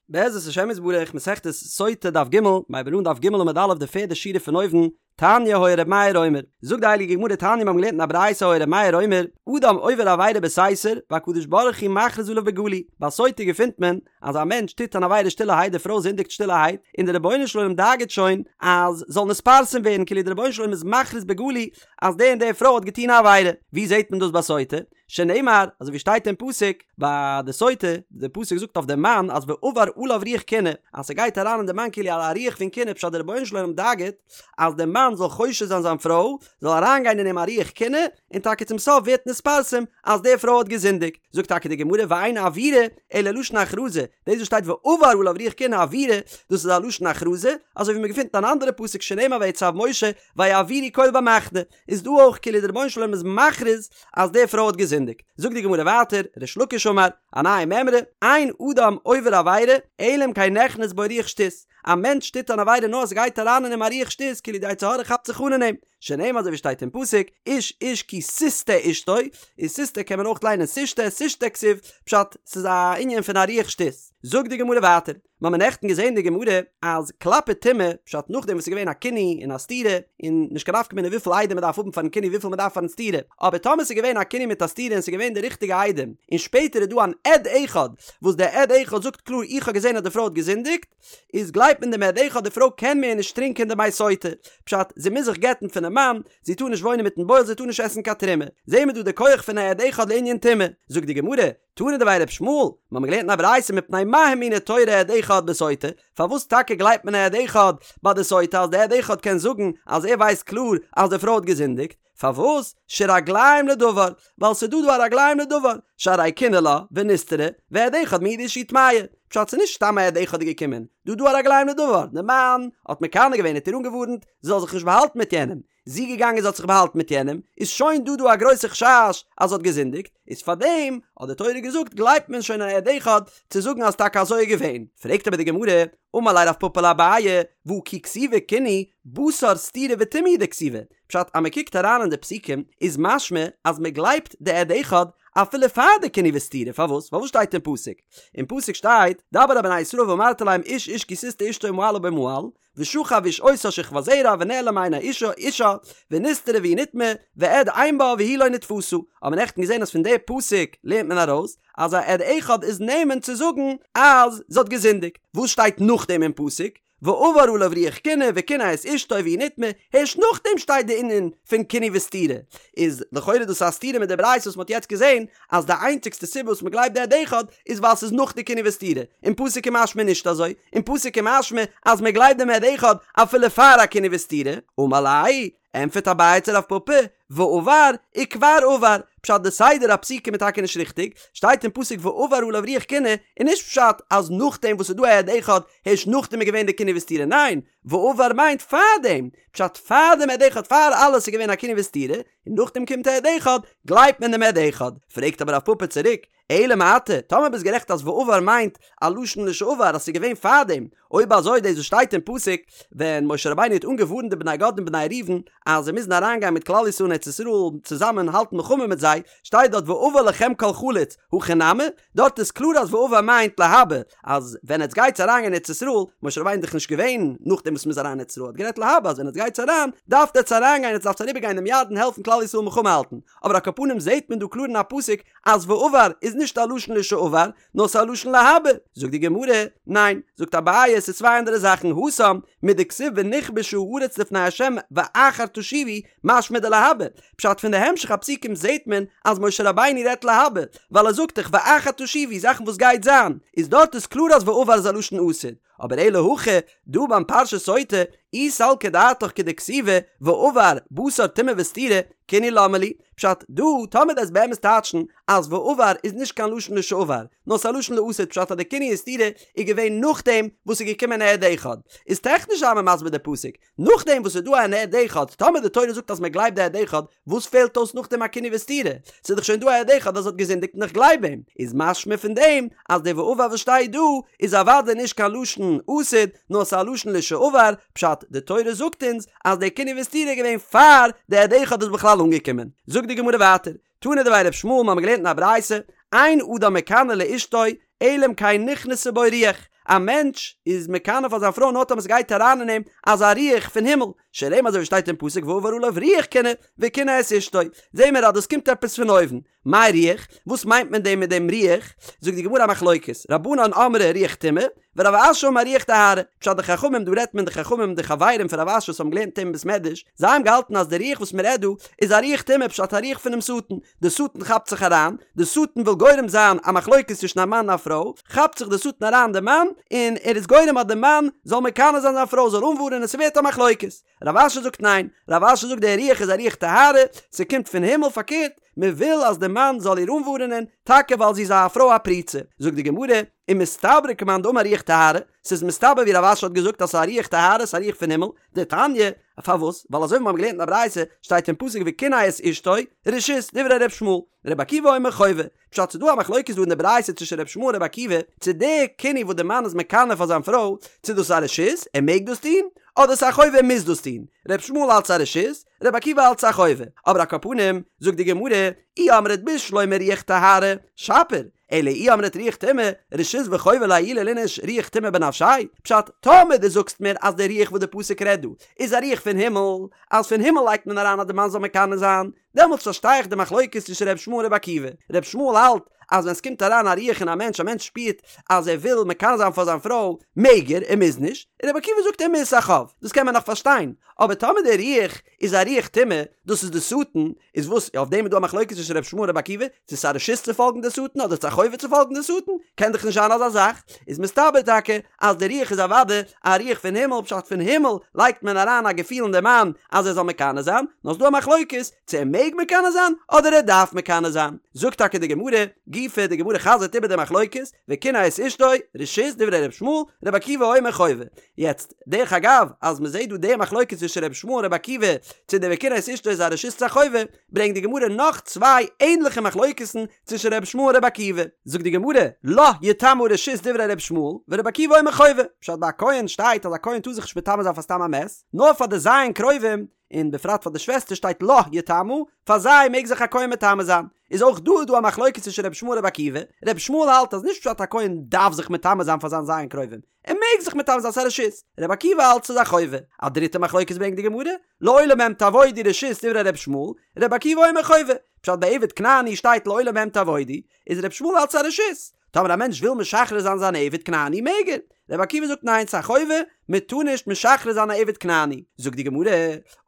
בעזרת השם יתברך, מסכת סוטה דף ג', מ'הייבן אן דף ג' עמוד א' די פערדע שורה פון אויבן, תניא היה ר' מאיר אומר, זאגט די הייליגע גמרא תניא מיר האבן געלערנט אין א ברייתא היה ר' מאיר אומר, אדם עובר עבירה בסתר, והקדוש ברוך הוא מכריז עליו בגלוי, ביי סוטה געפינט מען אז א מענטש טוט אן עבירה שטילערהייט די פרוי זינדיגט שטילערהייט, און די רבונו של עולם דאגה'ט שוין אז זאל נתפרסם ווערן כאילו די רבונו של עולם איז מכריז בגלוי אז די און די פרוי האט געטון א עבירה, ווי זעט מען דאס ביי סוטה? שנאמר, אזוי ווי שטייט אין פסוק ביי די סוטה, די פסוק זאגט אויף די מאן אז ועבר עליו רוח קנאה, אז ס'גייט אריין אין די מאן כאילו א רוח פון קנאה, פשט די רבונו של עולם דאגה'ט אז די מאן זאל חושד זיין זיין פרוי, זאל אריינגיין אין אים א רוח קנאה, און טאקע צום סוף ווערט נתפרסם אז די פרוי האט געזינדיגט. זאגט טאקע די גמרא ואין עבירה אלא לשון הכרזה, דאס וואס שטייט ועבר עליו רוח קנאה עבירה, דאס איז א לשון הכרזה, אזוי ווי מ'געפינט אין אן אנדערע פסוק שנאמר ויצו משה ויעבירו קול במחנה, איז דא אויך כאילו די רבונו של עולם איז מכריז אז די פרוי האט געזינדיגט. זאגט די גמרא ווייטער, ריש לקיש אמר, א נייע מימרא, אין אדם עובר עבירה, אלא אם כן נכנס בו רוח שטות, א מענטש טוט אן עבירה נאר עס גייט אריין אין אים א רוח שטות כאילו די יצר הרע כאפט זיך אן אין אים, שנאמר אזוי ווי שטייט אין פסוק, איש איש כי תשטה אשתו, איז תשטה קען מען אויך ליינען תשתה, תשתה כתיב, פשט, ס'איז א ענין פון א רוח שטות. זאגט די גמרא ווייטער, מיר האבן נעכטן געזען די גמרא אז כלפי טומאה, פשט נאכדעם וואס ס'איז געווען א קינוי און א סתירה, און נישט קיין נפקא מינה וויפיל עדים מ'דארף האבן פארן קינוי וויפיל מ'דארף פארן סתירה, אבער טאמער ס'איז געווען א קינוי מיט א סתירה און ס'איז געווען די ריכטיגע עדים, און שפעטער איז דא אן עד אחד וואס דער עד אחד זאגט קלאר איך האב געזען אז די פרוי האט געזינדיגט, איז גלייבט מען דעם עד אחד די פרוי קען מער נישט טרינקען די מי סוטה, פשט זי מוז זיך גט'ן פונעם מאן, זי טאר נישט וואוינען מיטן בועל זי טאר נישט עסן קיין תרומה, זעהן מיר דא די כח פון א עד אחד לענין טומאה, זאגט די גמרא, תנא דבי ר' ישמעאל, מיר האבן געלערנט אין א ברייתא מפני מה האמינה תורה עד אחד בסוטה, פארוואס טאקע גלייבט מען א עד אחד ביי די סוטה אז די עד אחד קען זאגן אז ער ווייסט קלאר אז די פרוי האט געזינדיגט, פארוואס? שרגליים לדבר, ווייל ס'איז דא דא א רגליים לדבר, שהרי קינא לה ונסתרה, ועד אחד מעיד שהיא טמאה, פשט ס'איז נישט סתם א עד אחד איז געקומען, דא דא א רגליים לדבר, די מאן האט מקנא געווען האט איר אנגעווארנט זי זאל זיך נישט באהאלטן מיט יענעם, זי געגאנגען זי האט זיך באהאלטן מיט יענעם, איז שוין דא דא א גרויסע חשש אז זי האט געזינדיגט, איז פארדעם האט די תורה געזאגט גלייבט מען שוין א עד אחד צו זאגן אז טאקע אזוי איז געווען, פרעגט אבער די גמרא, אמר ליה רב פפא לאביי, והא כי כתיבא קינוי בתר סתירה וטומאה הוא דכתיבא, פשט אז מען קוקט אריין אין די פסוקים איז משמע אז מען גלייבט די עד אחד אפילו פאר די קינוי וסתירה, פארוואס? ווייל וואס שטייט אין פסוק? אין פסוק שטייט, דבר אל בני ישראל ואמרת אליהם איש איש כי תשטה אשתו ומעלה בו מעל, ושכב איש אותה שכבת זרע ונעלם מעיני אישה אישה ונסתרה והיא נטמאה ועד אין בה והיא לא נתפשה האט מען נעכטן געזען אז פון די פסוק לערנט מען ארויס אז א עד אחד איז נאמן צו זאגן אז זי האט געזינדיגט וואס שטייט נאכדעם אין פסוק ועבר עליו רוח קנאה וקנא את אשתו והיא נטמאה הערשט נאכדעם שטייט די ענין פון קינוי וסתירה איז לכאורה דאס א סתירה מיט די ברייתא וואס מען האט יעצט געזען אז די איינציגסטע סיבה וואס מען גלייבט די עד אחד איז ווייל ס'איז נאך די קינוי וסתירה, אין פסוק איז משמע נישט אזוי, אין פסוק איז משמע אז מען גלייבט דעם עד אחד אפילו פאר א קינוי וסתירה, אמר ליה, ענטפערט אביי צו רב פפא, ועבר וכבר עבר, פשט די סדר הפסוקים איז טאקע נישט ריכטיג, שטייט אין פסוק ועבר עליו רוח קנאה, איז נישט פשט אז נאכדעם וואס ס'איז דא א עד אחד הערשט נאכדעם איז געווען די קינוי וסתירה, ניין, ועבר מיינט פארדעם, פשט פאר דעם עד אחד פאר אלעס איז געווען א קינוי וסתירה, און נאכדעם קומט א עד אחד, גלייבט מען דעם עד אחד. פרעגט אבער רב פפא צוריק, אלא מעתה, טאמער ביסט גערעכט אז ועבר מיינט א לשון לשעבר אז ס'איז געווען פארדעם, אויב אזוי דאס וואס שטייט אין פסוק ווען משה רבינו האט אנגעווארנט די בני גד און בני ראובן אז זיי מוזן אריינגיין מיט כלל ישראל אין ארץ ישראל צוזאמען האלטן מלחמה מיט זיי, שטייט דארט ועבר לכם כל חלוץ, הכי נמי, דארט איז קלאר אז ועבר מיינט להבא, אז ווען עטס גייטס אריין אין ארץ ישראל, משה רבינו איז דאך נישט געווען נאכדעם וואס מ'איז אריין אין ארץ ישראל, האט גערעדט להבא אז ווען עטס גייטס אריין, דארפט עטס אריינגיין, עטס דארפטס אריבערגיין דעם ירדן העלפן כלל ישראל מלחמה האלטן, אבער על כל פנים זעהט מען דא קלאר אין א פסוק אז ועבר איז נישט א לשון לשעבר, נאר ס'איז א לשון להבא, זאגט די גמרא, ניין, זאגט אביי עס איז צוויי אנדערע זאכן, התם, מדכתיב ונכבשה הארץ לפני ה' ואחר תשובו, משמע דלהבא, פשט פון די המשך הפסוקים זעהט מען אז משה רבינו רעדט להבא, ווייל ער זאגט דאך ואחר תשובו זאכן וואס גייט זיין, איז דארט איז קלאר אז ועבר איז א לשון עתיד, אבער אלא הכא, דא ביים פרשת סוטה, אי סלקא דעתך כדכתיבא ועבר בתר טומאה וסתירה, קינוי למה לי, פשט, דא, טאמער דו'סט באמת טייטשן אז ועבר איז נישט קיין לשון לשעבר, נאר ס'איז א לשון לעתיד פשט אז די קינוי און סתירה איז געווען נאכדעם וואס ס'איז געקומען א עד אחד, איז טעכניש זיי מיר מסביר די פסוק, נאכדעם וואס ס'איז דא אן עד אחד, טאמער די תורה זאגט אז מען גלייבט די עד אחד, וואס פעלט אויס נאכדעם א קינוי וסתירה? ס'איז דאך שוין דא א עד אחד אז זי האט געזינדיגט און איך גלייב אים. איז משמע פון דעם אז די ועבר וואס שטייט דא איז אוודאי נישט קיין לשון עתיד, נאר ס'איז א לשון לשעבר, פשט, די תורה זאגט אונז אז די קינוי וסתירה איז געווען פאר די עד אחד איז בכלל אנגעקומען. זאגט די גמרא ווייטער, תנא דבי ר' ישמעאל, מ'האמיר געלערנט אין א ברייתא, אין אדם מקנא לאשתו אלא אם כן נכנסה בו רוח, א מענטש איז מקנא פאר זיין פרוי נאר טאמער ס'גייט אריין אין אים אזא רוח פון הימל, שנאמר אזוי ווי שטייט אין פסוק ועבר עליו רוח קנאה וקנא את אשתו, זעהן מיר אז דאס קומט עפעס פון אויבן, מאי רוח? וואס מיינט מען דעם מיט דעם רוח? זאגט די גמרא א מחלוקת, רבנן אמרי רוח טומאה, ורב אשי אמר רוח טהרה, פשט די חכמים, דא רעדט מען די חכמים די חברים פון רב אשי וואס האבן געלערנט מיט אים אין בית מדרש, זיי האבן געהאלטן אז די רוח וואס מען רעדט דא איז א רוח טומאה פשט א רוח פונעם שטן, די שטן כאפט זיך אריין, די שטן וויל גורם זיין א מחלוקת צווישן א מאן און א פרוי, כאפט זיך די שטן אריין די מאן, און ער איז גורם אז די מאן זאל מקנא זיין זיין פרוי, זאל אנווארענען, ס'ווערט א מחלוקת. רב אשי זאגט ניין, רב אשי זאגט די רוח איז א רוח טהרה, ס'קומט פון הימל, פארקערט, מען וויל אז די מאן זאל איר אנווארענען, טאקע ווייל זי איז א פרוי א פרוצה. זאגט די גמרא, ומסתברא כמאן דאמר רוח טהרה, ס'איז מסתבר ווי רב אשי האט געזאגט אז ס'איז א רוח טהרה, ס'איז א רוח פון הימל, דתניא, פארוואס? ווייל אזוי ווי מיר האבן געלערנט אין א ברייתא, שטייט אין פסוק וקנא את אשתו, רשות, דברי ר' ישמעאל, ר' עקיבא אומר חובה. פשט ס'איז דא א מחלוקת דא אין די ברייתא צווישן ר' ישמעאל און ר' עקיבא, צו די קינוי וואס די מאן איז מקנא פאר זיין פרוי, צו דאס איז א רשות, ער מעג דאס טון, אדער ס'איז א חובה ער מוז דאס טון. ר' ישמעאל האלט ס'איז א רשות, ר' עקיבא האלט ס'איז א חובה. אבער על כל פנים, זאגט די גמרא, אי אמרת בשלמא רוח טהרה, שפיר, אלא אי אמרת רוח טומאה, רשות וחובה לעיולי ליניש רוח טומאה בנפשיה, פשט, טאמער דו זאגסט מיר אז די רוח וואס די פסוק רעדט דא איז א רוח פון הימל, אז פון הימל לייגט מען אריין אז די מאן זאל מקנא זיין, דעמאלטס פארשטיי איך די מחלוקת צווישן ר' ישמעאל און ר' עקיבא. ר' ישמעאל האלט אז ווען ס'קומט אריין א רוח אין א מענטש, א מענטש שפירט אז ער וויל מקנא זיין פאר זיין פרוי, מעג ער, ער מוז נישט, און ר' עקיבא זאגט ער מוז, ס'א חוב. דאס קען מען נאך פארשטיין. אבער טאמער די רוח איז א רוח טומאה, דאס איז די שטן, איז וואס, אויף דעם איז דא א מחלוקת צווישן ר' ישמעאל און ר' עקיבא, צו ס'איז א רשות צו פאלגן די שטן אדער ס'איז א חובה צו פאלגן די שטן, קען דאך נישט זיין אזא זאך, איז מסתבר טאקע אז די רוח איז אוודאי א רוח פון הימל, פשט פון הימל לייגט מען אריין א געפיל אין די מאן אז ער זאל מקנא זיין, נאר ס'דא א מחלוקת צו ער מעג מקנא זיין אדער ער דארף מקנא זיין. זאגט טאקע די גמרא, גופא, די גמרא חזר'ט איבער די מחלוקת, וקנא את אשתו, רשות, דברי ר' ישמעאל, ר' עקיבא אומר חובה. יעצט, דרך אגב, אז מ'זעט דא די מחלוקת צווישן ר' ישמעאל און ר' עקיבא, צו די וקנא את אשתו איז א רשות צו א חובה, ברענגט די גמרא נאך צוויי ענדליכע מחלוקת'ן צווישן ר' ישמעאל און ר' עקיבא. זאגט די גמרא, לה יטמא רשות דברי ר' ישמעאל, ור' עקיבא אומר חובה. פשט ביי א כהן שטייט אז א כהן טאר זיך נישט מטמא זיין פאר סתם א מת, נאר פאר די ז' קרובים, און בפרט פאר די שוועסטער שטייט לה יטמא, פאר זיי מעג זיך א כהן מטמא זיין. איז אויך דא איז דא א מחלוקת צווישן ר' ישמעאל און ר' עקיבא, ר' ישמעאל האלט אז נישט פשט א כהן דארף זיך מטמא זיין פאר זיין ז' קרובים, ער מעג זיך מטמא זיין ס'איז א רשות, ר' עקיבא האלט ס'איז א חובה. א דריטע מחלוקת ברענגט די גמרא, לעולם בהם תעבודו רשות דברי ר' ישמעאל, ר' עקיבא אומר חובה. פשט ביי עבד כנעני שטייט לעולם בהם תעבודו, איז ר' ישמעאל האלט ס'איז א רשות. טאמער א מענטש וויל משחרר זיין זיין עבד כנעני מעג ער. ר' עקיבא זאגט ניין ס'איז א חובה, מען טאר נישט משחרר זיין א עבד כנעני. זאגט די גמרא,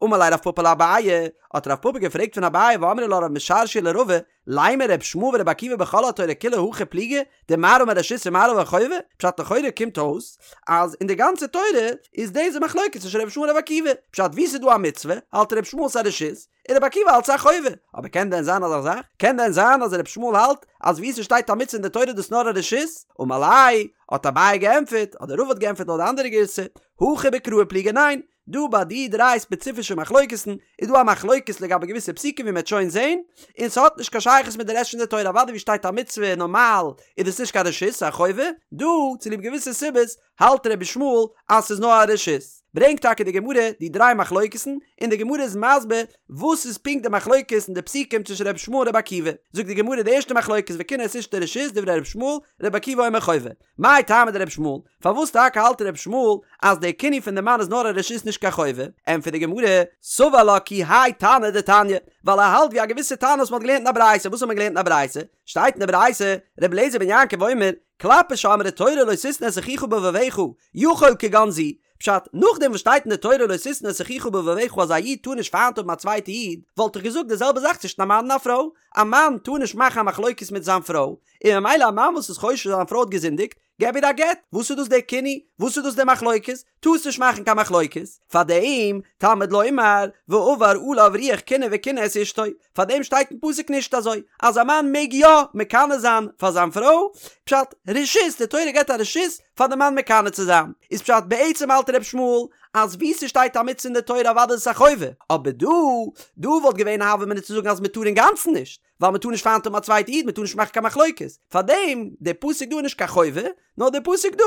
אמר ליה רב פפא לאביי, האט רב פפא געפרעגט פון אביי ואמרי לה רב משרשיא לרבא, לימא ר' ישמעאל ור' עקיבא בכל התורה כולה הכי פליגי, דמר אמר רשות ומר אמר חובה, פשט לכאורה קומט אויס אז אין די גאנצע תורה איז דאס די מחלוקת צווישן ר' ישמעאל און ר' עקיבא, פשט וואו ס'איז דא א מצוה האלט ר' ישמעאל ס'איז א רשות, און ר' עקיבא האלט ס'איז א חובה, אבער קען דען זיין אזא זאך? קען דען זיין אז ר' ישמעאל האלט אז וואו ס'שטייט א מצוה אין די תורה איז דאס נאר א רשות? אמר ליה, האט אביי געענטפערט, אדער רבא האט געענטפערט לויט די אנדערע גירסא, הכא בקראי פליגי ניין, דא ביי די דריי ספעציפישע מחלוקת'ן איז דא א מחלוקת לגבי געוויסע פסוקים ווי מ'עט שוין זעהן, און ס'האט נישט קיין שייכות מיט די רעשט פון די תורה, אוודאי ווי שטייט א מצוה נארמאל איז דאס נישט קיין רשות ס'איז א חובה, דא צוליב געוויסע סיבות האלט רבי ישמעאל אז ס'איז נאר א רשות. ברענגט טאקע די גמרא די דריי מחלוקת'ן, און די גמרא איז מסביר וואס איז פונקט די מחלוקת אין די פסוקים צווישן רבי ישמעאל און רבי עקיבא. זאגט די גמרא די ערשטע מחלוקת וקנא את אשתו רשות דברי רבי ישמעאל, רבי עקיבא אומר חובה. מאי טעמא דרבי ישמעאל? פארוואס טאקע האלט רבי ישמעאל אז די קינוי פון די מאן איז נאר א רשות נישט קיין חובה? ענטפערט די גמרא, סבר לה כי האי תנא דתניא, ווייל ער האלט ווי א געוויסע תנא וואס מען האט געלערנט אין א ברייתא, וואס האט מען געלערנט אין א ברייתא? שטייט אין די ברייתא, רבי אליעזר בן יעקב אומר, כלפי שאמרה תורה לא תשנא את אחיך בלבבך, יכול כגון זו, פשט, נאכדעם וואס שטייט אין די תורה לא תשנא את אחיך בלבבך אז א איד טאר נישט פיינט האבן א צווייטע איד, וואלט איך געזאגט די זעלבע זאך צווישן א מאן און א פרוי, א מאן טאר נישט מאכן א מחלוקת מיט זיין פרוי, און ממילא א מאן וואס איז חושש אז זיין פרוי האט געזינדיגט, געב איר א גט, וואס איז דאס דער קינוי? וואס איז דאס דער מחלוקת? טארסט נישט מאכן קיין מחלוקת, פארדעם תלמוד לומר ועבר עליו רוח קנאה וקנא את אשתו, פארדעם שטייט אין פסוק נישט אזוי אז א מאן מעג יא מקנא זיין פאר זיין פרוי, פשט, רשות, די תורה געבט א רשות פאר די מאן מקנא צו זיין, איז פשט בעצם האלט ר' ישמעאל אז וואו ס'שטייט א מצוה אין די תורה אוודאי איז עס א חובה, אבער דא, דא וואלט געווען א הוה אמינא צו זאגן אז מ'טאר אינגאנצן נישט, ווייל מ'טאר נישט פיינט האבן א צווייטע איד, מ'טאר נישט מאכן קיין מחלוקת, פארדעם די פסוק דא איז נישט קיין חובה, נאר די פסוק דא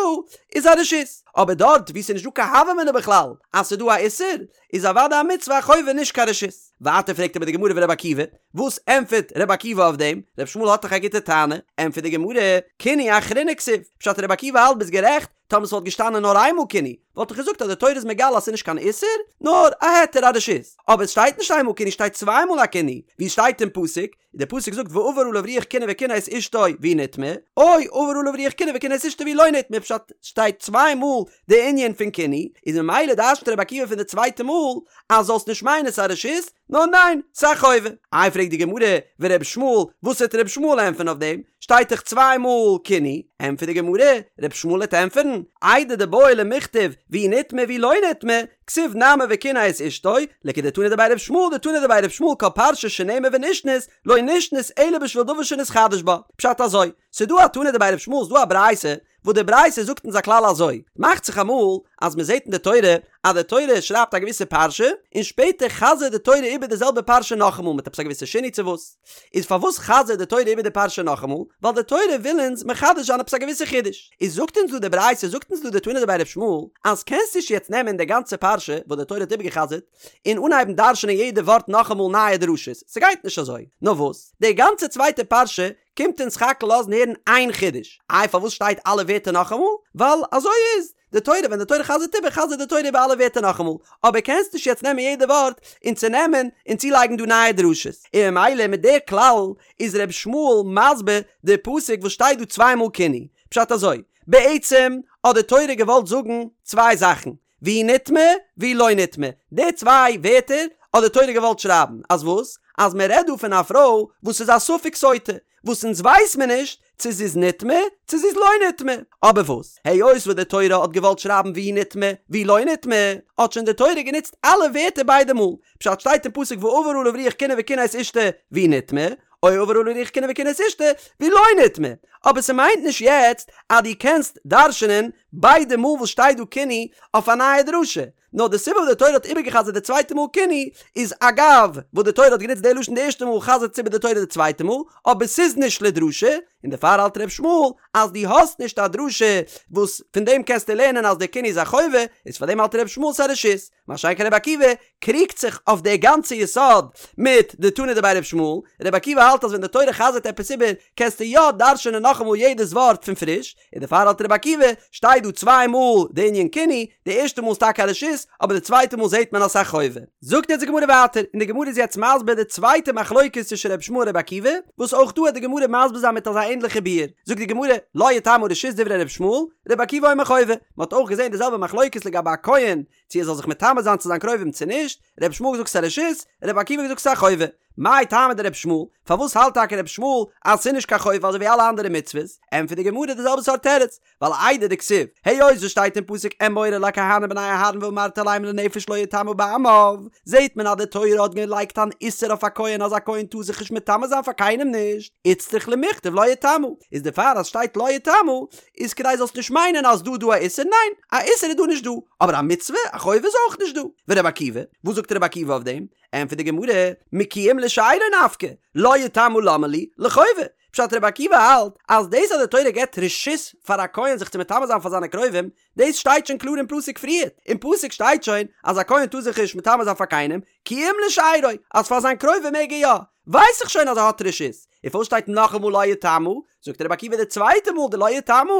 איז א רשות, אבער דארט וואו ס'איז נישט דא קיין הוה אמינא בכלל אז ס'איז דא א איסור, איז אוודאי א מצוה א חובה נישט קיין רשות. ווייטער פרעגט אבער די גמרא ור' עקיבא, וואס ענטפערט ר' עקיבא אויף דעם? ר' ישמעאל האט דאך א גוטע טענה, ענטפערט די גמרא, קינוי אחרינא כתיב, פשט ר' עקיבא האלט ביסט גערעכט, טאמער ס'וואלט געשטאנען נאר איינמאל קינוי, וואלט איך געזאגט אז די תורה איז מגלה אז ס'איז נישט קיין איסור, נאר א היתר א רשות. אבער עס שטייט נישט איינמאל קינוי שטייט צוויי מאל א קינוי, ווי עס שטייט אין פסוק, די פסוק זאגט ועבר עליו רוח קנאה וקנא את אשתו והיא נטמאה, או עבר עליו רוח קנאה וקנא את אשתו והיא לא נטמאה, פשט שטייט צוויי מאל די ענין פון קינוי, איז ממילא דרש'נט רבי עקיבא פון די צווייטע מאל אז זאלסט נישט מיינען ס'איז א רשות, נאר ניין, ס'איז א חובה. איי פרעגט די גמרא, ור' ישמעאל, וואס וועט ר' ישמעאל ענטפערן אויף דעם? שטייט דאך צוויי מאל קינוי. ענטפערט די גמרא, ר' ישמעאל וועט ענטפערן, איידי דבעי למיכתב והיא נטמאה והיא לא נטמאה, כתיב נמי וקנא את אשתו, לכדתנא דבי ר' ישמעאל דתנא דבי ר' ישמעאל כל פרשה שנאמר ונשנית, לא נשנית אלא בשביל דבר שנתחדש בה. פשט אזוי, ס'דא א תנא דבי ר' ישמעאל ס'דא א ברייתא וואס די ברייתא זאגט אונז א כלל אזוי, מאכט זיך אמאל אז מען זעט אין די תורה אז די תורה שרייבט א געוויסע פרשה, און שפעטער חזר'ט די תורה איבער די זעלבע פרשה נאכאמאל מיט עפעס א געוויסע שינוי צו וואס. איז פארוואס חזר'ט די תורה איבער די פרשה נאכאמאל? ווייל די תורה וויל אונז מחדש זיין עפעס א געוויסע חידוש. איז זאגט אונז דא די ברייתא, זאגט אונז דא די תנא דבי ר' ישמעאל, אז קענסט נישט יעצט נעמען די גאנצע פרשה וואס די תורה האט איבערגעחזר'ט, און אנהייבן דרש'נען יעדע ווארט נאכאמאל נייע דרשות, ס'גייט נישט אזוי. נאר וואס? די גאנצע צווייטע פרשה קומט אונז סך הכל לאזן הערן איין חידוש. איי פארוואס שטייט אלע ווערטער נאכאמאל? ווייל אזוי איז די תורה, ווען די תורה חזר'ט איבער חזר'ט די תורה איבער אלע ווערטער נאכאמאל, אבער קענסט נישט יעצט נעמען יעדע ווארט און צונעמען און צולייגן דא נייע דרשות. און ממילא מיט די כלל איז ר' ישמעאל מסביר די פסוק וואס שטייט דא צוויי מאל קינוי. פשט אזוי, בעצם האט די תורה געוואלט זאגן צוויי זאכן, והיא נטמאה והיא לא נטמאה, די צוויי ווערטער האט די תורה געוואלט שרייבן, אז וואס? אז מען רעדט דא פון א פרוי וואס איז א ספק סוטה, וואס אונז ווייס מיר נישט צו זי איז נטמאה צו זי איז לא נטמאה, אבער וואס? היות וואס די תורה האט געוואלט שרייבן והיא נטמאה והיא לא נטמאה, האט שוין די תורה גענוצט אלע ווערטער ביידע מאל, פשט שטייט אין פסוק ועבר עליו רוח קנאה וקנא את אשתו והיא נטמאה, או עבר עליו רוח קנאה וקנא את אשתו והיא לא נטמאה, אבער ס'מיינט נישט יעצט אז דו קענסט דרש'נען ביידע מאל וואס שטייט דא קינוי אויף א נייע דרשה, נאר די סיבה וואס די תורה האט איבערגע'חזר'ט די צווייטע מאל קינוי איז אגב וואס די תורה האט גענוצט די לשון די ערשטע מאל חזר'ט עס איבער די תורה די צווייטע מאל, אבער ס'איז נישט לדרשה, און דערפאר האלט ר' ישמעאל אז דו האסט נישט א דרשה וואס פון דעם קענסטו לערנען אז די קינוי איז א חובה, איז פאר דעם האלט ר' ישמעאל ס'איז א רשות. מה שאין כן רבי עקיבא קריגט זיך אויף די גאנצע יסוד מיט די תנא דבי ר' ישמעאל, רבי עקיבא האלט אז ווען די תורה חזר'ט עפעס איבער קענסטו יא דרש'נען נאכאמאל יעדעס ווארט פון פריש, און דערפאר האלט רבי עקיבא, שטייט דא צוויי מאל די ענין קינוי, די ערשטע מאל איז טאקע א רשות, אבער די צווייטע מאל זעט מען אז ס'איז א חובה. זאגט יעצט די גמרא ווייטער, און די גמרא איז יעצט מסביר די צווייטע מחלוקת צווישן ר' ישמעאל און רבי עקיבא, וואס אויך דא העט די גמרא מסביר זיין מיט אזא ענדליכע ביאור, זאגט די גמרא, לה יטמא רשות דברי ר' ישמעאל, רבי עקיבא אומר חובה, מ'האט אויך געזען די זעלבע מחלוקת לגבי א כהן, צו ער זאל זיך מטמא זיין צו זיין קרובים צו נישט, ר' ישמעאל האט געזאגט ס'איז א רשות, ר' עקיבא האט געזאגט ס'איז א חובה. מאי טעמא דר' ישמעאל, פארוואס האלט טאקע ר' ישמעאל אז ס'איז נישט קיין חובה אזוי ווי אלע אנדערע מצוות? ענטפערט די גמרא די זעלבע סארט תירוץ, ווייל איידי דכתיב, היות עס שטייט אין פסוק אמור אל הכהנים בני אהרן ואמרת אליהם לנפש לא יטמא בעמיו, זעט מען אז די תורה האט געלייגט אן איסור אויף א כהן אז א כהן טאר זיך נישט מטמא זיין פאר קיינעם נישט, איצטריך למיכתב לא יטמא, איז דערפאר אז שטייט לא יטמא איז כדי זאלסט נישט מיינען אז דא דא א איסור, ניין, א איסור איז דא נישט דא, אבער א מצוה, א חובה איז אויך נישט דא. ורבי עקיבא, וואס זאגט רבי עקיבא אויף דעם? ענטפערט די גמרא, מכי אם לשארו נפקא, לא יטמא למה לי, לחובה. פשט רבי עקיבא האלט אז דאס אז די תורה געבט רשות פאר א כהן זיך צו מטמא זיין פאר זיינע קרובים, דאס שטייט שוין קלאר אין פסוק פריערט, אין פסוק שטייט שוין אז א כהן טאר זיך נישט מטמא זיין פאר קיינעם, כי אם לשארו, אז פאר זיין קרובים מעג ער יא, ווייס איך שוין אז ער האט רשות, און פארוואס שטייט נאכאמאל לא יטמא? זאגט רבי עקיבא די צווייטע מאל די לא יטמא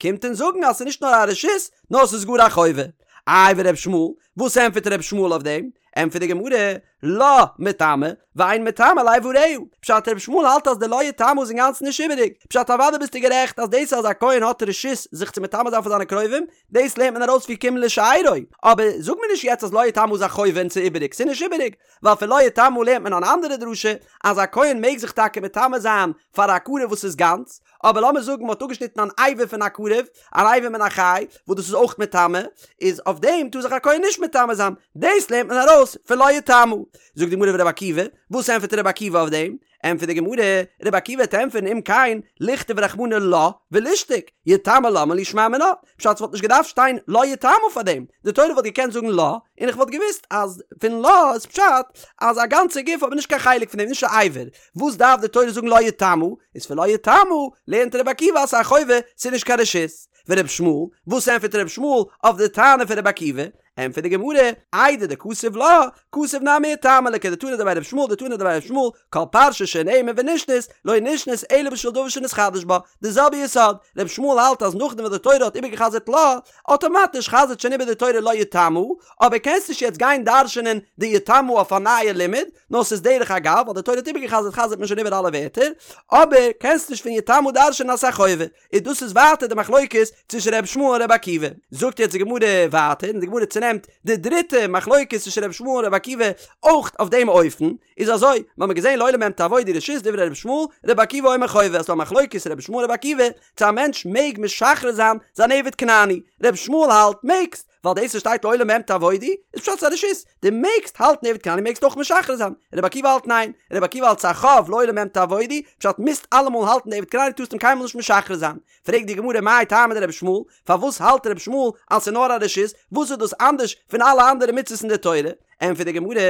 קומט אונז זאגן אז ס'איז נישט נאר א רשות נאר ס'איז גאר א חובה. איי ור' ישמעאל, וואס ענטפערט ר' ישמעאל אויף דעם? ענטפערט די גמרא, לה מטמא, ואין מטמא לאבריה. פשט ר' ישמעאל האלט אז די לא יטמא איז אינגאנצן נישט איבעריג. פשט אוודאי ביסטו גערעכט אז דאס אז א כהן האט רשות זיך צו מטמא זיין פאר זיינע קרובים, דאס לערנט מען ארויס פון כי אם לשארו. אבער זאג מיר נישט יעצט אז לא יטמא איז א חובה און ס'איז איבעריג, ס'איז נישט איבעריג. ווייל פון לא יטמא לערנט מען אן אנדערע דרשה, אז א כהן מעג זיך טאקע מטמא זיין פאר א קרוב וואס איז גאנץ, אבער לאמיר זאגן מ'האט אפגעשניטן אן אבר פון א קרוב, אן אבר מן החי, וואס דאס איז אויך מטמא, איז אויף דעם טאר זיך א כהן נישט מטמא זיין, דאס לערנט מען ארויס פון לא יטמא. זאגט די גמרא ורבי עקיבא, וואס ענטפערט רבי עקיבא אויף דעם? ענטפערט די גמרא, רבי עקיבא וועט ענטפערן אם כן, לכתוב רחמנא לה ולישתוק, יטמא למה לי שמע מינה, פשט ס'וואלט נישט געדארפט שטיין לא יטמא פאר דעם, די תורה וואלט געקענט זאגן לה, און איך וואלט געוואוסט אז פון לה איז פשט אז א גאנצע גוף אבער נישט קיין חלק פון דעם, נישט א אבר, וואס דארף די תורה זאגן לא יטמא, איז פון לא יטמא לערנט רבי עקיבא אז ס'איז א חובה, ס'איז נישט קיין רשות. ורבי ישמעאל, וואס ענטפערט רבי ישמעאל אויף די טענה פון רבי עקיבא? ענטפערט די גמרא, איידי דכתב לה, כתב נמי יטמא לכדתנא דבי ר' ישמעאל דתנא דבי ר' ישמעאל, כל פרשה שנאמר ונשנית, לא נשנית אלא בשביל דבר שנתחדש בה, די זעלבע יסוד, ר' ישמעאל האלט אז נאכדעם וואס די תורה האט איבערגעחזרט לה, אטאמאטיש חזר'ט שוין איבער די תורה לה יטמא, אבער קענסט נישט יעצט גיין דרש'ענען די יטמא אויף א נייע לימוד, נאר ס'איז דרך אגב, ווייל די תורה האט איבערגעחזרט חזר'ט מען שוין איבער אלע ווערטער, אבער קענסט נישט פון יטמא דרש'ענען אז ס'איז א חובה, און דאס איז ווייטער די מחלוקת צווישן ר' ישמעאל און ר' עקיבא. זאגט יעצט די גמרא ווייטער, און די גמרא צונעמט די דריטע מחלוקת צווישן ר' ישמעאל און ר' עקיבא אויך אויף דעם אופן, איז אזוי, מ'האמיר געזען לעולם בהם תעבודו רשות דברי ר' ישמעאל, ר' עקיבא אומר חובה, אז ס'דא א מחלוקת ר' ישמעאל ר' עקיבא, צו א מענטש מעג משחרר זיין זיין עבד כנעני, ר' ישמעאל האלט מעגסט, ווייל דאס וואס שטייט לעולם בהם תעבודו איז פשט ס'איז א רשות, דו מעגסט האלטן עבד כנעני מעגסט אויך משחרר זיין, ר' עקיבא האלט ניין, ר' עקיבא האלט ס'איז א חוב לעולם בהם תעבודו, פשט מוזט אלעמאל האלטן די עבד כנעני טארסט אים קיינמאל נישט משחרר זיין, פרעגט די גמרא מאי טעמא דרבי ישמעאל, פארוואס האלט רבי ישמעאל אז ס'איז נאר א רשות, וואס איז דאס אנדערש פון אלע אנדערע מצוות אין די תורה? ענטפערט די גמרא,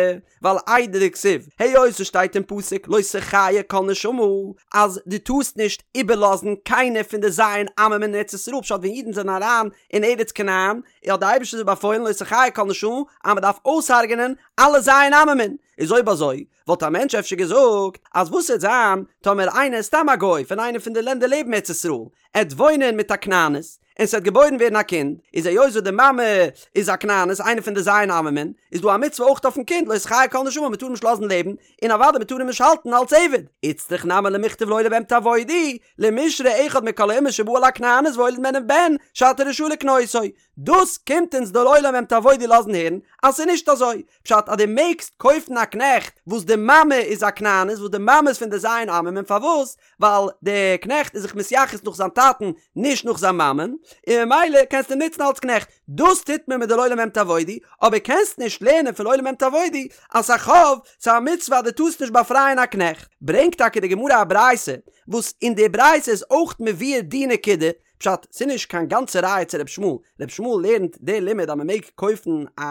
ווייל איידי דכתיב, היות עס שטייט אין פסוק לא תחיה כל נשמה, אז דו טארסט נישט איבערלאזן קיינער פון די ז' עממין אין ארץ ישראל, פשט ווען אידן זענען אריין אין ארץ כנען, האט די אייבערשטער זיי באפוילן לא תחיה כל נשמה אז מען דארף אויסהרג'נען אלע ז' עממין, איז אויב אזוי וואלט א מענטש אפשר געזאגט אז וואס וועט זיין טאמער איינער איז סתם א גוי פון איינע פון די לענדער לעבן ארץ ישראל, עט וואוינען מיט א כנענית, און ס'וועט געבוירן ווערן א קינד, איז היות וואס די מאמע איז א כנענית, איינע פון די ז' עממין, איז דא א מצוה אויך אויפן קינד, לא תחיה כל נשמה, מ'טאר אים נישט לאזן לעבן, און אוודאי מ'טאר אים נישט האלטן אלס עבד. איצטריך נמי למכתב לעולם בהם תעבודו, למישרי אחד מכל האומות שבא על הכנענית והוליד ממנה בן, שאתה רשאי לקנותו. דאס קומט אונז די לעולם בהם תעבודו לאזן הערן אז ס'איז נישט אזוי. פשט אז דו מעגסט קויפן א קנעכט וואס די מאמע איז א כנענית, וואס די מאמע איז פון די ז' עממין, פארוואס? ווייל דער קנעכט איז זיך מתייחס נאך זיין טאטן נישט נאך זיין מאמען, און ממילא קענסטו אים נוצן אלס קנעכט, דאס טוט מען מיט די לעולם בהם תעבודו, אבער קענסט נישט לערנען פון לעולם בהם תעבודו אז ס'איז א חוב, ס'איז א מצוה אז דו טארסט נישט באפרייען א קנעכט. ברענגט טאקע די גמרא א ברייתא, וואס אין די ברייתא איז אויך מבואר די נקודה, פשט, ס'איז נישט קיין גאנצע ראיה צו ר' ישמעאל, ר' ישמעאל לערנט די לימוד אז מ'מעג קויפן א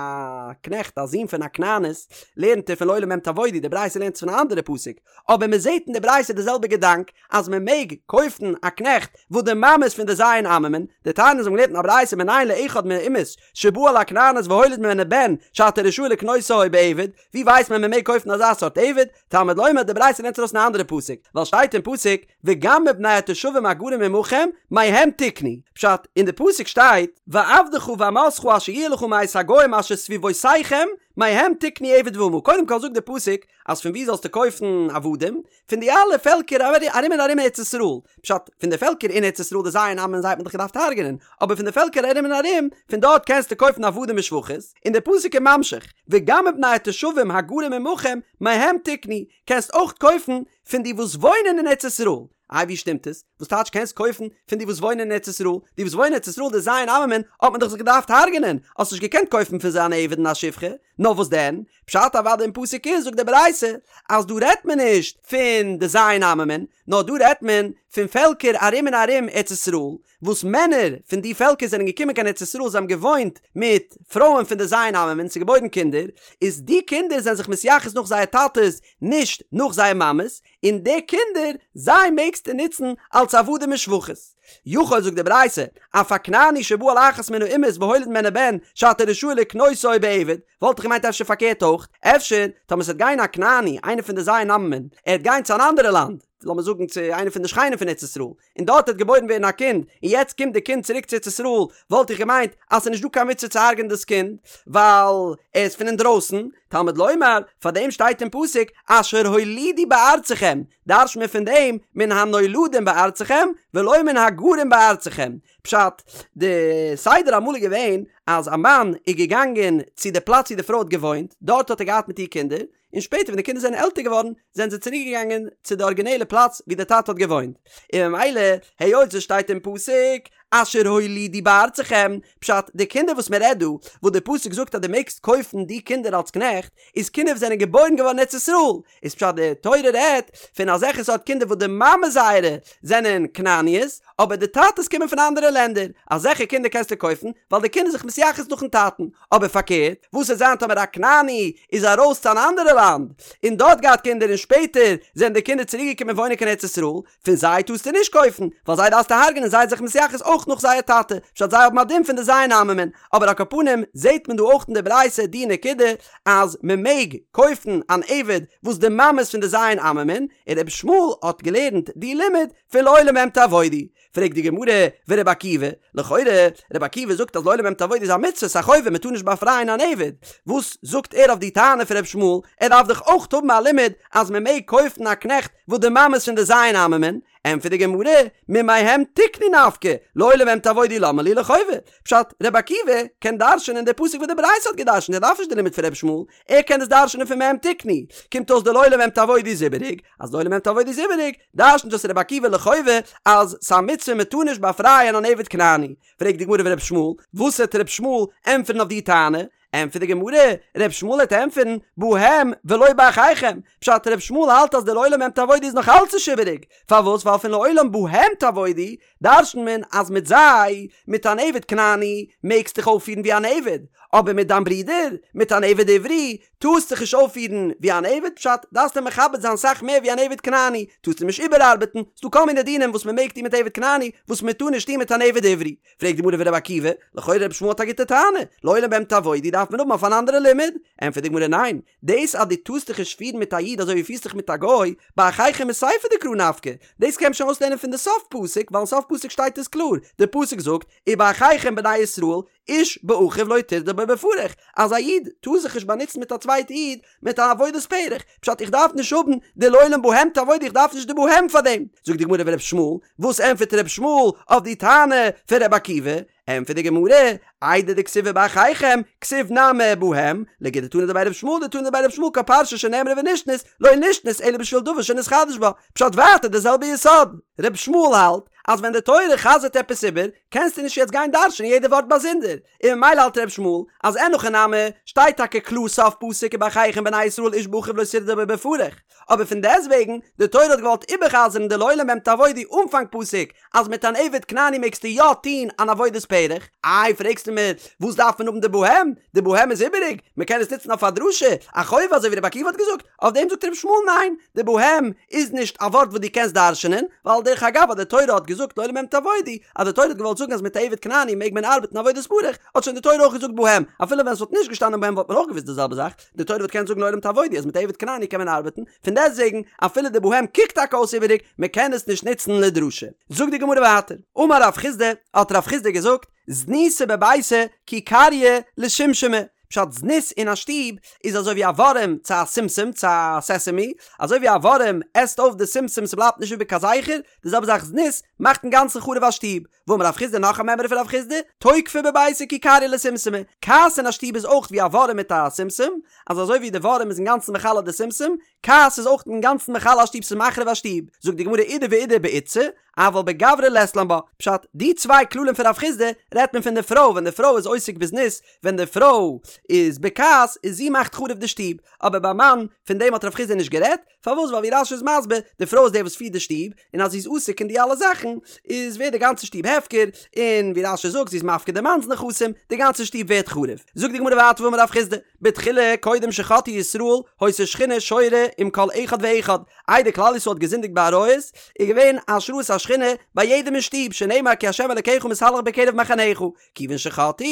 קנעכט א זון פון א כנענית, לערנט ער פון לעולם בהם תעבודו, די ברייתא לערנט עס פון א אנדערע פסוק, אבער מ'זעט אין די ברייתא די זעלבע געדאנק אז מ'מעג קויפן א קנעכט וואס די מאמע איז פון די ז' עממין, דתניא אונז האבן געלערנט אין א ברייתא מנין לאחד מן האומות שבא על הכנענית והוליד ממנה בן שאתה רשאי לקנותו בעבד, ווי ווייסט מען מ'מעג קויפן אזא סארט עבד? תלמוד לומר די ברייתא לערנט ארויס אין א אנדערע פסוק, ווייל שטייט אין פסוק וגם מבני התושבים הגרים עמכם מהם תקנו, פשט, אין די פסוק שטייט ועבדך ואמתך אשר יהיה לך מאת הגוים אשר סביבותיכם מהם תקנו עבד ואמה, קודם כל זאגט די פסוק אז פון וואו זאלסטו קויפן עבדים? פון די אלע פעלקער ארום און ארום ארץ ישראל, פשט, פון די פעלקער אין ארץ ישראל די ז' עממין זיי האט מען דאך געדארפט הרג'נען, אבער פון די פעלקער ארום און ארום, פון דארט קענסטו קויפן עבדים ושפחות, און די פסוק איז ממשיך, וגם מבני התושבים הגרים עמכם מהם תקנו, קענסט אויך קויפן פון די וואס וואוינען אין ארץ ישראל. איי ווי שטימט עס? וואס טייטש קענסט קויפן פון די וואס וואוינען אין ארץ ישראל? די וואס וואוינען אין ארץ ישראל די ז' עממין האט מען דאך זיך געדארפט הרג'נען, האסט נישט געקענט קויפן פון זיי אן עבד און א שפחה, נאר וואס דען? פשט אוודאי אין פסוק איז זאגט די ברייתא אז דא רעדט מען נישט פון די ז' עממין, נאר דא רעדט מען פון פעלקער ארום און ארום ארץ ישראל, וואס מענער פון די פעלקער זענען געקומען קיין ארץ ישראל זיי האבן געוואוינט מיט פרויען פון די ז' עממין ס'איז געבוירן קינדער, איז די קינדער זענען זיך מתייחס נאך זייער טאטעס נישט נאך זייער מאמעס, און די קינדער זיי מעגסטו נוצן אלס עבדים און שפחות. יכול זאגט די ברייתא, אף הכנעני שבא על אחת מן האומות והוליד ממנה בן שאתה רשאי לקנותו בעבד, וואלט איך געמיינט אפשר פארקערט אויך, אפשר טאמער ס'וועט גיין א כנעני איינער פון די ז' עממין ער וועט גיין צו אן אנדערע לאנד, לאמיר זאגן צו איינע פון די שכנים פון ארץ ישראל, און דארט וועט געבוירן ווערן א קינד, און יעצט קומט די קינד צוריק צו ארץ ישראל, וואלט איך געמיינט אז ס'איז נישט דא קיין מצוה צו הרג'ענען דאס קינד, ווייל ער איז פון אינדרויסן, תלמוד לומר, פאר דעם שטייט אין פסוק, אשר הולידו בארצכם, דרש'ט מען פון דעם, מן הנולדים בארצכם, ולא מן הגרים בארצכם. פשט, די סדר אמאל איז געווען, אז א מאן איז געגאנגען צו די פלאץ ווי די פרוי האט געוואוינט, דארט האט ער געהאט מיט איר קינדער, און שפעטער ווען די קינדער זענען עלטער געווארן זענען זיי צוריק געגאנגען צו די ארגינעלע פלאץ ווי די טאטע האט געוואוינט, און ממילא היות עס שטייט אין פסוק אשר הולידו בארצכם, פשט, די קינדער וואס מען רעדט דא, וואס די פסוק זאגט אז דו מעגסט קויפן די קינדער אלס קנעכט, איז קינדער וואס זענען געבוירן געווארן אין ארץ ישראל, איז פשט די תורה רעדט פון אזעלכע סארט קינדער וואס די מאמע זייערע זענען כנעניות, אבער די טאטעס קומען פון אנדערע לענדער, אזעלכע קינדער קענסטו קויפן, ווייל די קינד איז זיך מתייחס נאכן טאטן, אבער פארקערט, וואס וועט זיין טאמער א כנעני איז ארויס צו אן אנדערע לאנד, און דארט געהאט קינדער און שפעטער זענען די קינדער צוריק געקומען וואוינען קיין ארץ ישראל, פון זיי טארסטו נישט קויפן, ווייל זיי דארפסטו הרג'נען זיי זיך מתייחס אויך. אויך נאך זייער טאטע, פשט זיי האבן א דין פון די ז' עממין, אבער על כל פנים זעהט מען דא אויך אין די ברייתא די נקודה אז מען מעג קויפן אן עבד וואס די מאמע איז פון די ז' עממין, און רבי ישמעאל האט געלערנט די לימוד פון לעולם בהם תעבודו. פרעגט די גמרא, ורבי עקיבא, לכאורה, רבי עקיבא זאגט אז לעולם בהם תעבודו איז א מצוה, ס'איז א חובה, מ'טאר נישט באפרייען אן עבד. וואס זאגט ער אויף די טענה פון רבי ישמעאל, ער דארף דאך אויך האבן א לימוד אז מ'מעג קויפן א קנעכט וואס די מאמע איז פון די ז' עממין? ענטפערט די גמרא, ממהם תקנו נפקא, לעולם בהם תעבודו למה לי לחובה. פשט, רבי עקיבא קען דרש'נען די פסוק וואס די ברייתא האט געדרש'נט, ער דארף נישט די לימוד פון רבי ישמעאל, ער קען עס דרש'נען פון מהם תקנו. קומט אויס די לעולם בהם תעבודו איז איבעריג, אז לעולם בהם תעבודו איז איבעריג, דרש'נט דאס רבי עקיבא לחובה אז ס'א מצוה מ'טאר נישט באפרייען אן עבד כנעני. פרעגט די גמרא ורבי ישמעאל, וואס העט רבי ישמעאל ענטפערן אויף די טענה? ענטפערט די גמרא, רבי ישמעאל העט ענטפערן, בהם ולא באחיכם, פשט רבי ישמעאל האלט אז די לעולם בהם תעבודו איז נאך אלץ נישט איבעריג, פארוואס ווייל פון לעולם בהם תעבודו דרש'נט מען אז מיט זיי, מיט אן עבד כנעני, מעגסט דיך אויפפירן ווי אן עבד, אבער מיט דיין ברודער, מיט אן עבד עברי, טארסט דיך נישט אויפפירן ווי אן עבד, פשט, דארפסט אים מכבד זיין סאך מער ווי אן עבד כנעני, טארסט אים נישט איבערארבעטן, ס'דא כל מיני דינים וואס מען מעג טון מיט עבד כנעני, וואס מען טאר נישט טון מיט אן עבד עברי. פרעגט די גמרא ורבי עקיבא, לכאורה רבי ישמעאל האט א גוטע טענה, לעולם בהם תעבודו דארף מען האבן אויף אן אנדערע לימוד, ענטפערט די גמרא ניין, דאס אז דו טארסט דיך נישט פירן מיט א איד אזוי ווי פירסט דיך מיט א גוי, באחיכם מסיפא דקרא נפקא, דאס קען מען שוין אויסלערנען פון די סוף פסוק, ווייל אין סוף פסוק שטייט עס קלאר, די פסוק זאגט, ובאחיכם בני ישראל, איש באחיו לא תרדה בו בפרך, אז א איד טאר זיך נישט באנוצן מיט א צווייטע איד מיט א עבודת פרך, פשט איך דארף נישט האבן די לעולם בהם תעבודו איך דארף נישט די בהם פאר דעם, זאגט די גמרא ור' ישמעאל, וואס ענטפערט ר' ישמעאל אויף די טענה פון ר' עקיבא? ענטפערט די גמרא, איידי דכתיב ובאחיכם, כתיב נמי בהם, לכדתנא דבי ר' ישמעאל דתנא דבי ר' ישמעאל כל פרשה שנאמרה ונשנית, לא נשנית אלא בשביל דבר שנתחדש בה, פשט ווייטער די זעלבע יסוד. ר' ישמעאל האלט אז ווען די תורה חזר'ט עפעס איבער, קענסטו נישט יעצט גיין דרש'ענען יעדע ווארט באזונדער, און ממילא האלט ר' ישמעאל אז אין הכי נמי שטייט טאקע קלאר סוף פסוק ובאחיכם בני ישראל איש באחיו לא תרדה בו בפרך, אבער פון דעסטוועגן, די תורה האט געוואלט איבערחזר'ן די לעולם בהם תעבודו אנפאנג פסוק אז מיט אן עבד כנעני מעגסטו יא טוהן אן עבודת פרך, איי פרעגסטו מיר וואס דארף מען האבן די בהם, די בהם איז איבעריג, מען קען עס נוצן אויף א דרשה, א חובה אזוי ווי רבי עקיבא האט געזאגט, אויף דעם זאגט רבי ישמעאל ניין, די בהם איז נישט א ווארט וואס דו קענסט דרש'נען, ווייל דרך אגב אז די תורה האט געזאגט לעולם בהם תעבודו, אז די תורה האט געוואלט זאגן אז מיט א עבד כנעני מעג מען ארבעטן עבודת פרך, האט שוין די תורה אויך געזאגט בהם, אפילו ווען עס וואלט נישט געשטאנען בהם וואלט מען אויך געוואוסט די זעלבע זאך, די תורה וואלט געקענט זאגן לעולם תעבודו אז מיט א עבד כנעני קען מען ארבעטן, פון דעסטוועגן אפילו די בהם קוקט טאקע אויס איבעריג, מען קען עס נישט נוצן לדרשה. זאגט די גמרא ווייטער, אמר רב חסדא, האט רב חסדא געזאגט, זנותא בביתא כי קריא לשומשמא, פשט זנות אין א שטוב איז אזוי ווי א ווארעם צו א שומשום צו א סעסעמי, אזוי ווי א ווארעם עסט אויף די שומשום ס'בלייבט נישט איבער קיין זכר, די זעלבע זאך זנות מאכט אינגאנצן חרוב א שטוב. ואמר רב חסדא נאך א מימרא פון רב חסדא, תוקפא בביתא כי קריא לשומשמא, כעס אין א שטוב איז אויך ווי א ווארעם מיט א שומשום, אז אזוי ווי די ווארעם איז אינגאנצן מכלה די שומשום, כעס איז אויך אינגאנצן מכלה א שטוב ס'איז מחריב א שטוב, זאגט די גמרא אידי ואידי באיתתא, אבל בגברא לית לן בה, פשט, די צוויי כללים פון רב חסדא רעדט מען פון די פרוי, ווען די פרוי איז עוסק בזנות, ווען די פרוי איז בכעס, איז זי מאכט חרוב די שטוב, אבער ביי מאן, פון דעם האט רב חסדא נישט גערעדט, פארוואס ווייל ווי רש"י איז מסביר, די פרוי איז די וואס פירט די שטוב, און אז זי איז עוסק אין די אלע זאכן, איז ווערט די גאנצע שטוב הפקר, און ווי רש"י זאגט זי איז מפקיר די מאנ'ס נכסים, די גאנצע שטוב ווערט חרוב. זאגט די גמרא ווייטער ואמר רב חסדא, בתחילה קודם שחטאו ישראל היתה שכינה שורה עם כל אחד ואחד, איידער כלל ישראל האט געזינדיגט בעריות, איז געווען השראת השכינה ביי יעדעם אין שטוב, שנאמר כי ה' אלקיך מתהלך בקרב מחניך, כיוון שחטאו,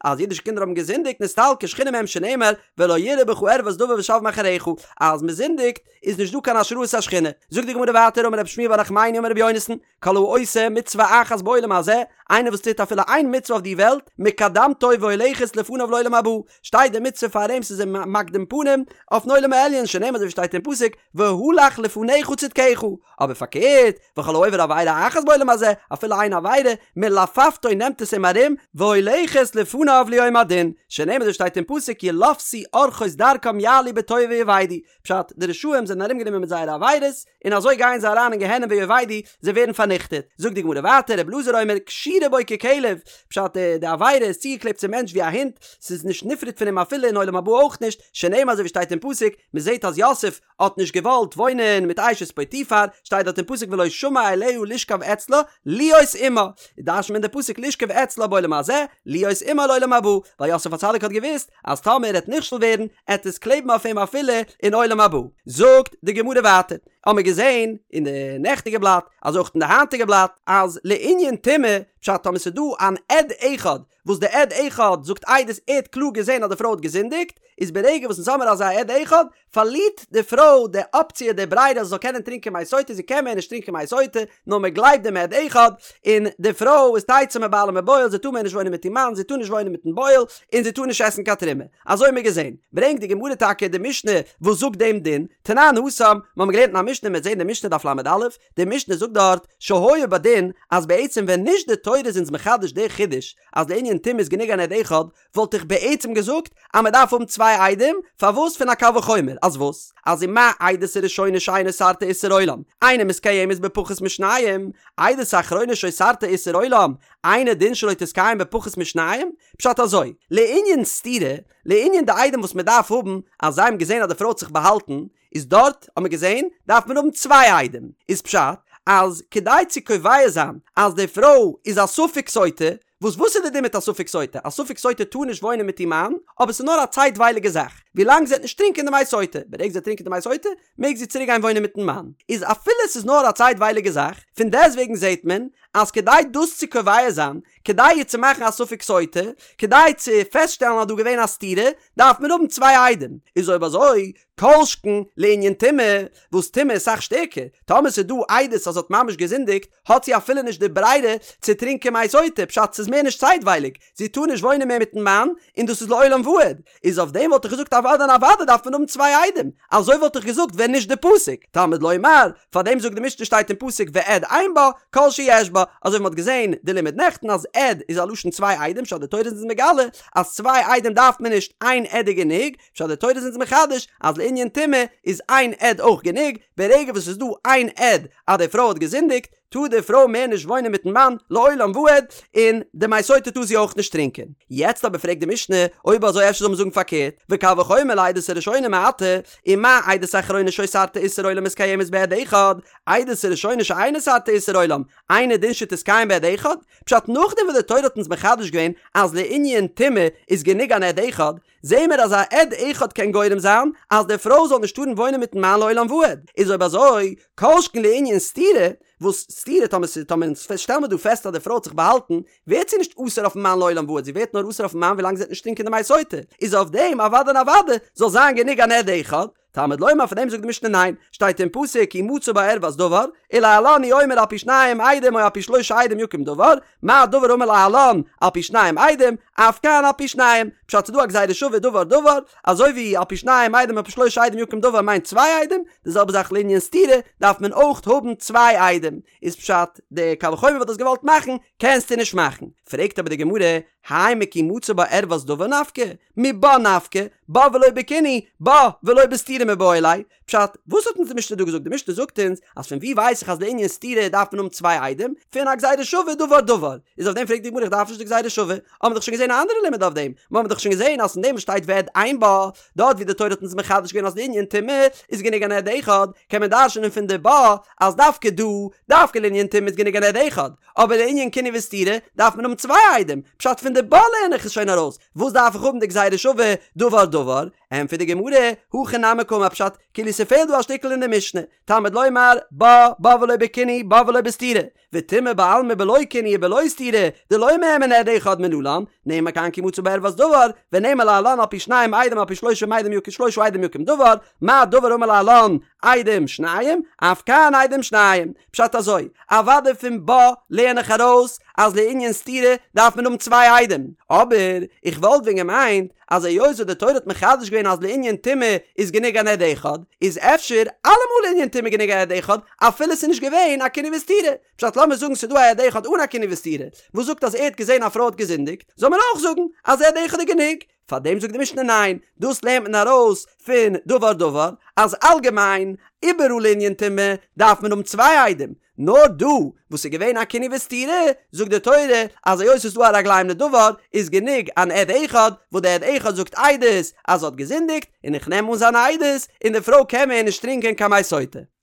אז אידישע קינדער האבן געזינדיגט נסתלקה שכינה מהם שנאמר ולא יראה בך ערות דבר ושב מאחריך, אז מען זינדיגט איז נישט דא קיין השראת השכינה. זאגט די גמרא ווייטער אמר רבי שמואל בר נחמני אמר רבי יונתן, כל העושה מצוה אחת בעולם הזה, איינער וואס טוט אפילו איין מצוה אויף די וועלט, מקדמתו והולכת לפניו לעולם הבא, שטייט די מצוה פאר אים ס'איז אים מקדים פנים אויפן עולם העליון שנאמר אזוי ווי שטייט אין פסוק והלך לפניך צדקך, אבער פארקערט וכל העובר עבירה אחת בעולם הזה, אפילו איין עבירה, מלפפתו נעמט עס אים ארום, והולכת לפניו ליום הדין, שנאמר אזוי ווי שטייט אין פסוק ילפתו ארחות דרכם יעלו בתוהו ויאבדו, פשט, די רשעים זענען ארומגענומען מיט זייערע עבירות, און אזוי גייען זיי אריין אין גיהנום ויאבדו, זיי ווערן פארניכטעט. זאגט די גמרא ווייטער, רבי אלעזר אומר, קשורה בו ככלב, פשט, די עבירה איז צוגעקלעבט צום מענטש ווי א הונט, ס'איז נישט נפרד פון אים אפילו אין עולם הבא אויך נישט, שנאמר אזוי ווי שטייט אין פסוק, מ'זעט אז יוסף האט נישט געוואלט וואוינען מיט אשת פוטיפר, שטייט דארט אין פסוק ולא שמע אליה לשכב אצלה, להיות עמה, דרש'נט מען די פסוק לשכב אצלה בעולם הזה, להיות עמה לעולם הבא, ווייל יוסף הצדיק האט געוואוסט אז טאמער ער העט נכשל ווערן, עט עס קלעבן אויף אים אפילו אין עולם הבא. זאגט די גמרא ווייטער. האמיר געזען אין די נעכטיגע בלאט, אזוי אויך אין די היינטיגע בלאט, אז לענין טומאה, פשט טאמער ס'איז דא אן עד אחד, וואס די עד אחד זאגט עדות ער האט קלאר געזען אז די פרוי האט געזינדיגט, איז ברגע וואס אונז האמיר אזא עד אחד, פארלירט די פרוי די אפציע די ברירה אז זי זאל קענען טרינקען מי סוטה, זי קען מער נישט טרינקען מי סוטה, נאר מען גלייבט דעם עד אחד, און די פרוי איז תצא מבעלה ומבועל, זי טאר מער נישט וואוינען מיט איר מאן, זי טאר נישט וואוינען מיטן בועל, און זי טאר נישט עסן קיין תרומה. אזוי האמיר געזען. ברענגט די גמרא טאקע די משנה וואס זאגט דעם דין, תנן התם, מיר האבן געלערנט אין א משנה, מ'וועט זען די משנה דף ל"א, די משנה זאגט דארט, שהיה בדין, אז בעצם ווען נישט די תורה איז אונז מחדש די חידוש אז לענין טומאה איז גענוג אן עד אחד, וואלט איך בעצם געזאגט אז מען דארף האבן צוויי עדים, פארוואס פון א קל וחומר, אז וואס? אז ומה עדות הראשונה שאינה אוסרתה איסור עולם, אינה מתקיימת בפחות משניים, עדות האחרונה שאוסרתה איסור עולם, אינו דין שלא תתקיים בפחות משניים? פשט אזוי, לענין סתירה, לענין די עדים וואס מען דארף האבן אז זיי האבן געזען אז די פרוי האט זיך באהאלטן, איז דארט האט מען געזען דארף מען האבן צוויי עדים, איז פשט אז כדי צו קובע זיין אז די פרוי איז א ספק סוטה, וואס וואס איז די דין מיט א ספק סוטה? א ספק סוטה טאר נישט וואוינען מיט איר מאן, אבער ס'איז נאר א צייטווייליגע זאך, ווילאנג זי וועט נישט טרינקען די מי סוטה, ברגע זי וועט טרינקען די מי סוטה, מעג זי צוריק גיין וואוינען מיטן מאן. איז אפילו ס'איז נאר א צייטווייליגע זאך, פון דעסטוועגן זעט מען אז כדי דאס צו קובע זיין, כדי איר צו מאכן א ספק סוטה, כדי צו פעסטשטעלן אז דא געווען א סתירה, דארף מען האבן צוויי עדים. איז אויב אזוי, כל שכן לענין טומאה, וואס טומאה איז סאך שטערקער, טאמער ס'איז דא עדות אז זי האט ממש געזינדיגט, האט זי אפילו נישט די ברירה צו טרינקען מי סוטה, פשט ס'איז מער נישט צייטווייליג, זי טאר נישט וואוינען מער מיטן מאן, און דאס איז לעולם ועד, איז אויף דעם וואלט איך געזאגט אוודאי און אוודאי דארף מען האבן צוויי עדים, אזוי וואלט איך געזאגט ווען נישט די פסוק, תלמוד לומר, פארדעם זאגט די משנה שטייט אין פסוק ועד אין בה, כל שיש בה, אזוי ווי מ'האט געזען די לימוד נעכטן אז עד איז א לשון צוויי עדים, פשט די תורה איז אונז מגלה אז צוויי עדים דארף מען נישט איין עד איז גענוג, פשט די תורה איז אונז מחדש אז לענין טומאה איז איין עד אויך גענוג, ברגע וואס ס'איז דא איין עד אז די פרוי האט געזינדיגט, טאר די פרוי מער נישט וואוינען מיטן מאן לעולם ועד, און די מי סוטה טאר זי אויך נישט טרינקען. יעצט אבער פרעגט די משנה, אויב אזוי אפשר זאל מען זאגן פארקערט, וקל וחומר לעדות הראשונה מעתה, ומה עדות האחרונה שאוסרתה איסור עולם מתקיימת בעד אחד, עדות הראשונה שאינה אוסרתה איסור עולם, אינו דין שתתקיים בעד אחד? פשט נאכדעם וואס די תורה האט אונז מחדש געווען אז לענין טומאה איז גענוג אן עד אחד, זעהן מיר אז א עד אחד קען גורם זיין אז די פרוי זאל נישט טארן וואוינען מיטן מאן לעולם ועד, איז אויב אזוי כל שכן לענין סתירה, וואס סתירה טאמער ס'איז טאמער אונז שטעלן מיר דא פעסט אז די פרוי האט זיך באהאלטן, ווערט זי נישט אסור אויפן מאן לעולם ועד, זי ווערט נאר אסור אויפן מאן ווילאנג זי וועט נישט טרינקען די מי סוטה, איז אויף דעם אוודאי און אוודאי זאל זיין גענוג אן עד אחד, תלמוד לומר פאר דעם זאגט די משנה ניין, שטייט אין פסוק כי מצא בה ערות דבר, ולהלן הוא אומר על פי שניים עדים או על פי שלשה עדים יקום דבר, מה דבר האמור להלן על פי שניים עדים, אף כאן על פי שניים, פשט ס'דא א גזירה שווה דבר דבר, אזוי ווי על פי שניים עדים על פי שלשה עדים יקום דבר מיינט צוויי עדים, די זעלבע זאך לענין סתירה דארף מען אויך האבן צוויי עדים, איז פשט די קל וחומר וואס דו האסט געוואלט מאכן קענסטו נישט מאכן, פרעגט אבער די גמרא, האי מכי מצא בה ערות דבר נפקא, מבה נפקא, בה ולא בקינוי, בה ולא בסתירה מיבעי ליה. פשט, וואס האט אונז די משנה דא געזאגט? די משנה זאגט אונז אז פון וואו ווייס איך אז לענין סתירה דארף מען האבן צוויי עדים? פון א גזירה שווה דבר דבר. איז אויף דעם פרעגט די גמרא איך דארף נישט די גזירה שווה, האבן מיר דאך שוין געזען א אנדערע לימוד אויף דעם, מיר האבן דאך שוין געזען אז פון דעם וואס שטייט ועד אין בה, דארט ווי די תורה האט אונז מחדש געווען אז לענין טומאה איז גענוג אן עד אחד, קען מען דרש'נען פון די בה אז דווקא דא, דווקא לענין טומאה איז גענוג אן עד אחד, אבער לענין קינוי וסתירה דארף מען האבן צוויי עדים, פשט פון די בה לערן איך עס שוין ארויס, וואס דארף איך האבן די גזירה שווה דבר דבר? ענטפערט די גמרא, הכי נמי קאמר פשט, כאילו ס'פעלט דא א שטיקל אין די משנה, תלמוד לומר, בה, בה ולא בקינוי, בה ולא בסתירה, וטומאה בעלמא בלא קינוי ובלא סתירה, דלא מהימן עד אחד מנלן, נאמר כאן כי מצא בה ערות דבר, ונאמר להלן על פי שניים עדים על פי שלושה עדים יקום שלושה עדים יקום דבר, מה דבר האמור להלן עדים שניים, אף כאן עדים שניים. פשט אזוי, אוודאי פון בה לערן איך ארויס אז לענין סתירה דארף מען האבן צוויי עדים, אבער איך וואלט ווען געמיינט אז היות וואס די תורה האט מחדש געווען אז לענין טומאה איז גענוג אן עד אחד, איז אפשר אלעמאל לענין טומאה גענוג א עד אחד אפילו ס'איז נישט געווען א קינוי וסתירה. פשט לאמיר זאגן ס'איז דא א עד אחד אן א קינוי וסתירה וואס זאגט אז ער האט געזען א פרוי האט געזינדיגט, זאל מען אויך זאגן אז עד אחד איז גענוג. פאר דעם זאגט די משנה ניין, דאס לערנט מען ארויס פון דבר דבר, אז אלגעמיין איבעראל לענין טומאה דארף מען האבן צוויי עדים, נאר דא וואס איז געווען א קינוי וסתירה, זאגט די תורה אז היות ס'איז דא א רגליים לדבר איז גענוג אן עד אחד, וואס די עד אחד זאגט עדות אז זי האט געזינדיגט, און איך נעם אן זיין עדות, און די פרוי קען מער נישט טרינקען קיין מי סוטה.